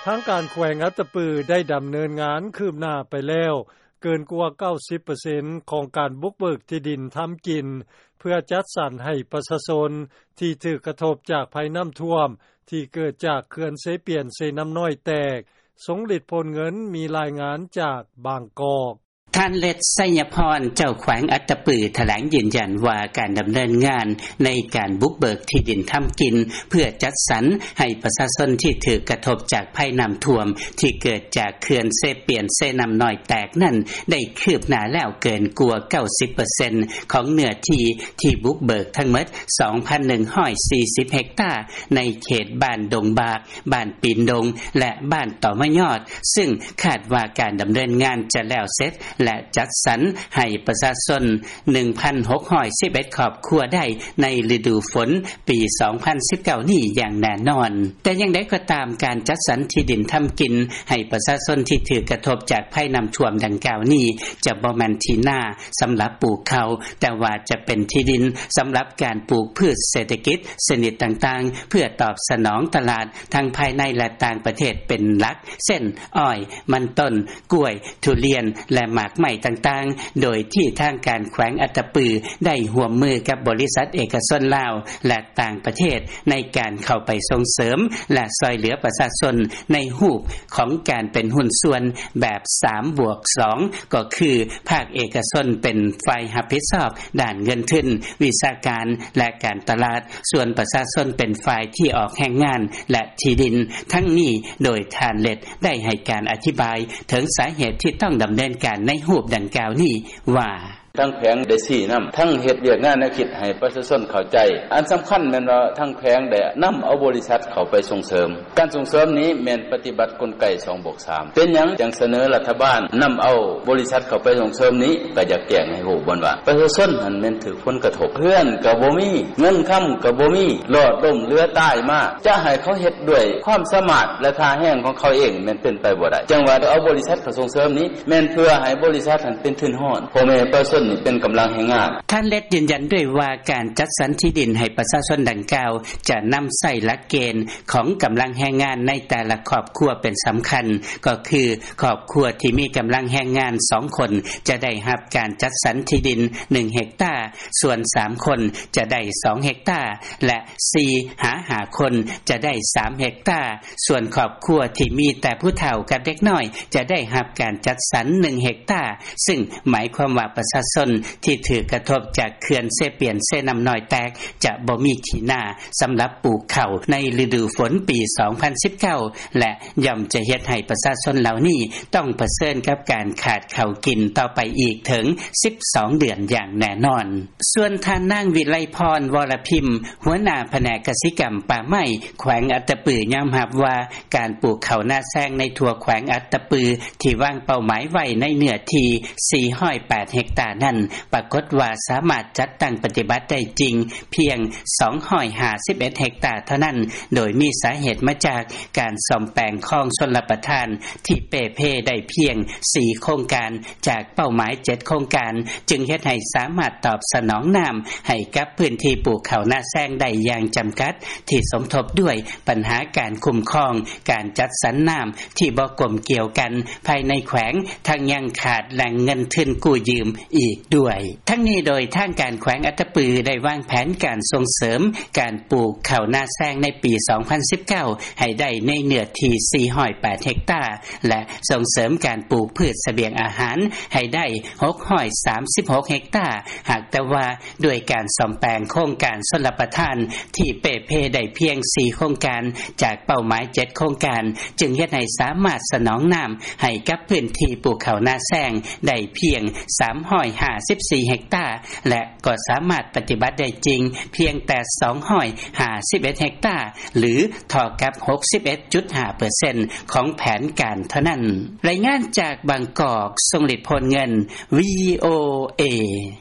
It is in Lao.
ທາງການແຂວງອັດຕະປື ໄດ້ດຳເນີນງານຄືບໜ້າໄປແລ້ວ ເກີນກວ່າ 90% ຂອງການບຸກເບີກທີ່ດິນທຳກິນ ເພື່ອຈັດສັນໃຫ້ປະຊາຊົນ ທີ່ຖືກກະທົບຈາກໄພນໍ້າຖ້ວມ ທີ່ເກີດຈາກເຂື່ອນເຊປຽນ-ເຊນໍ້ານ້ອຍແຕກ. ຊົງລິດ ໂພນເງິນ ມີລາຍງານຈາກບາງກອກ. ທ່ານ ເລັດ ໄຊຍະພອນ ເຈົ້າແຂວງອັດຕະປື ຖະແຫຼງຢືນຢັນວ່າ ການດຳເນີນງານໃນການບຸກເບີກທີ່ດິນທຳກິນ ເພື່ອຈັດສັນໃຫ້ປະຊາຊົນທີ່ຖືກກະທົບຈາກໄພນໍ້າຖ້ວມ ທີ່ເກີດຈາກເຂື່ອນເຊປຽນ-ເຊນໍ້ານ້ອຍແຕກນັ້ນ ໄດ້ຄືບໜ້າແລ້ວເກີນກວ່າ 90% ຂອງເນື້ອທີ່ທີ່ບຸກເບີກທັງໝົດ ສອງພັນໜຶ່ງຮ້ອຍສີ່ສິບເຮັກຕາ ໃນເຂດບ້ານດົງບາກ, ບ້ານປີນດົງ ແລະ ບ້ານຕໍມະຍອດ, ຊຶ່ງຄາດວ່າການດຳເນີນງານຈະແລ້ວເສັດ ແລະ ຈັດສັນໃຫ້ປະຊາຊົນ ໜຶ່ງພັນຫົກຮ້ອຍສິບເອັດຄອບຄົວໄດ້ໃນລະດູຝົນປີສອງພັນສິບເກົ້ານີ້ຢ່າງແນ່ນອນ. ແຕ່ຢ່າງໃດກໍຕາມ, ການຈັດສັນທີ່ດິນທຳກິນໃຫ້ປະຊາຊົນທີ່ຖືກກະທົບຈາກໄພນໍ້າຖ້ວມດັ່ງກ່າວນີ້ ຈະບໍ່ແມ່ນທີ່ນາສຳລັບປູກເຂົ້າ, ແຕ່ວ່າຈະເປັນທີ່ດິນສຳລັບການປູກພືດເສດຖະກິດຊະນິດຕ່າງໆ ເພື່ອຕອບສະໜອງຕະຫຼາດທັງພາຍໃນ ແລະ ຕ່າງປະເທດເປັນຫຼັກ ເຊັ່ນ ອ້ອຍ, ມັນຕົ້ນ, ກ້ວຍ, ທຸລຽນ ແລະ ໝາກໄມ້ຕ່າງໆ, ໂດຍທີ່ທາງການແຂວງອັດຕະປື ໄດ້ຮ່ວມມືກັບບໍລິສັດເອກະຊົນລາວ ແລະ ຕ່າງປະເທດ ໃນການເຂົ້າໄປສົ່ງເສີມ ແລະ ຊ່ອຍເຫຼືອປະຊາຊົນ ໃນຮູບຂອງການເປັນຫຸ້ນສ່ວນແບບ ສາມບວກສອງ ກໍຄື ພາກເອກະຊົນເປັນຝ່າຍຮັບຜິດຊອບດ້ານເງິນທຶນ, ວິຊາການ ແລະ ການຕະຫຼາດ, ສ່ວນປະຊາຊົນເປັນຝ່າຍທີ່ອອກແຮງງານ ແລະ ທີ່ດິນ. ທັງນີ້ ໂດຍທ່ານ ເລັດ ໄດ້ໃຫ້ການອະທິບາຍເຖິງສາເຫດທີ່ຕ້ອງດຳເນີນການໃນຮູບດັ່ງກ່າວນີ້ວ່າ: ທາງແຂວງໄດ້ຊີ້ນຳ, ທັງເຮັດວຽກງານແນວຄິດໃຫ້ປະຊາຊົນເຂົ້າໃຈ. ອັນສຳຄັນແມ່ນວ່າທາງແຂວງໄດ້ນຳເອົາບໍລິສັດເຂົ້າໄປສົ່ງເສີມ. ການສົ່ງເສີມນີ້ແມ່ນປະຕິບັດກົນໄກ ສອງບວກສາມ. ເປັນຫຍັງຈັ່ງສະເໜີລັດຖະບານນຳເອົາບໍລິສັດເຂົ້າໄປສົ່ງເສີມນີ້? ກໍຢາກແຈ້ງໃຫ້ຮູ້ບ່ອນວ່າ ປະຊາຊົນຫັ້ນແມ່ນຖືກຜົນກະທົບ, ເຮືອນກໍບໍ່ມີ, ເງິນຄຳກໍບໍ່ມີ, ລອດລົ້ມເຫຼືອຕາຍມາ. ຈະໃຫ້ເຂົາເຮັດດ້ວຍຄວາມສາມາດ ແລະ ທ່າແຮງຂອງເຂົາເອງ ແມ່ນເປັນໄປບໍ່ໄດ້. ຈັ່ງວ່າເອົາບໍລິສັດເຂົ້າສົ່ງເສີມນີ້ ແມ່ນເພື່ອໃຫ້ບໍລິສັດຫັ້ນເປັນທຶນຮອນ, ພໍ່ແມ່ປະຊາຊົນນີ້ເປັນກຳລັງແຮງງານ. ທ່ານ ເລັດ ຢືນຢັນດ້ວຍວ່າ ການຈັດສັນທີ່ດິນໃຫ້ປະຊາຊົນດັ່ງກ່າວ ຈະນຳໃຊ້ຫຼັກເກນຂອງກຳລັງແຮງງານໃນແຕ່ລະຄອບຄົວເປັນສຳຄັນ, ກໍຄື ຄອບຄົວທີ່ມີກຳລັງແຮງງານສອງຄົນ ຈະໄດ້ຮັບການຈັດສັນທີ່ດິນໜຶ່ງເຮັກຕາ, ສ່ວນສາມຄົນຈະໄດ້ສອງເຮັກຕາ ແລະ ສີ່ຫາຫ້າຄົນຈະໄດ້ສາມເຮັກຕາ. ສ່ວນຄອບຄົວທີ່ມີແຕ່ຜູ້ເຖົ້າກັບເດັກນ້ອຍ ຈະໄດ້ຮັບການຈັດສັນໜຶ່ງເຮັກຕາ, ຊຶ່ງໝາຍຄວາມວ່າປະຊາຊົນທີ່ຖືກກະທົບຈາກເຂື່ອນເຊປຽນ-ເຊນໍ້ານ້ອຍແຕກ ຈະບໍ່ມີທີ່ນາສຳລັບປູກເຂົ້າໃນລະດູຝົນປີສອງພັນສິບເກົ້າ ແລະ ຍ່ອມຈະເຮັດໃຫ້ປະຊາຊົນເຫຼົ່ານີ້ຕ້ອງປະເຊີນກັບການຂາດເຂົ້າກິນຕໍ່ໄປອີກເຖິງສິບສອງເດືອນຢ່າງແນ່ນອນ. ສ່ວນທ່ານນາງ ວິໄລພອນ ວໍລະພິມ ຫົວໜ້າພະແນກກະສິກຳປ່າໄມ້ ແຂວງອັດຕະປື ຍອມຮັບວ່າ ການປູກເຂົ້ານາແຊງໃນທົ່ວແຂວງອັດຕະປື ທີ່ວາງເປົ້າໝາຍໄວ້ໃນເນື້ອທີ່ສີ່ຮ້ອຍແປດເຮັກຕານັ້ນ ປາກົດວ່າສາມາດຈັດຕັ້ງປະຕິບັດໄດ້ຈິງພຽງສອງຮ້ອຍຫ້າສິບເອັດເຮັກຕາເທົ່ານັ້ນ, ໂດຍມີສາເຫດມາຈາກການສ້ອມແປງຄອງຊົນລະປະທານທີ່ເປ່ເພໄດ້ພຽງສີ່ໂຄງການ ຈາກເປົ້າໝາຍເຈັດໂຄງການ, ຈຶ່ງເຮັດໃຫ້ສາມາດຕອບສະໜອງນ້ຳໃຫ້ກັບພື້ນທີ່ປູກເຂົ້ານາແຊງໄດ້ຢ່າງຈຳກັດ, ທີ່ສົມທົບດ້ວຍບັນຫາການຄຸ້ມຄອງ, ການຈັດສັນນ້ຳທີ່ບໍ່ກົມກຽວກັນພາຍໃນແຂວງ, ທັງຍັງຂາດແຫຼ່ງເງິນທຶນກູ້ຢືມອີກດ້ວຍ. ທັງນີ້ໂດຍທາງການແຂວງອັດຕະປືໄດ້ວາງແຜນການສົ່ງເສີມການປູກເຂົ້ານາແຊງໃນປີສອງພັນສິບເກົ້າ ໃຫ້ໄດ້ໃນເນື້ອທີ່ສີ່ຮ້ອຍແປດເຮັກຕາ ແລະ ສົ່ງເສີມການປູກພືດສະບຽງອາຫານໃຫ້ໄດ້ຫົກຮ້ອຍສາມສິບຫົກເຮັກຕາ, ຫາກແຕ່ວ່າ ດ້ວຍການສ້ອມແປງໂຄງການຊົນລະປະທານທີ່ເປ່ເພໄດ້ພຽງສີ່ໂຄງການ ຈາກເປົ້າໝາຍເຈັດໂຄງການ, ຈຶ່ງເຮັດໃຫ້ສາມາດສະໜອງນ້ຳໃຫ້ກັບພື້ນທີ່ປູກເຂົ້ານາແຊງໄດ້ພຽງສາມຮ້ອຍຫ້າສິບສີ່ເຮັກຕາ ແລະ ກໍສາມາດປະຕິບັດໄດ້ຈິງພຽງແຕ່ສອງຮ້ອຍຫ້າສິບເອັດເຮັກຕາ ຫຼື ເທົ່າກັບຫົກສິບເອັດຈຸດຫ້າເປີເຊັນຂອງແຜນການເທົ່ານັ້ນ. ລາຍງານຈາກບາງກອກ, ຊົງລິດ ໂພນເງິນ, ວີໂອເອ.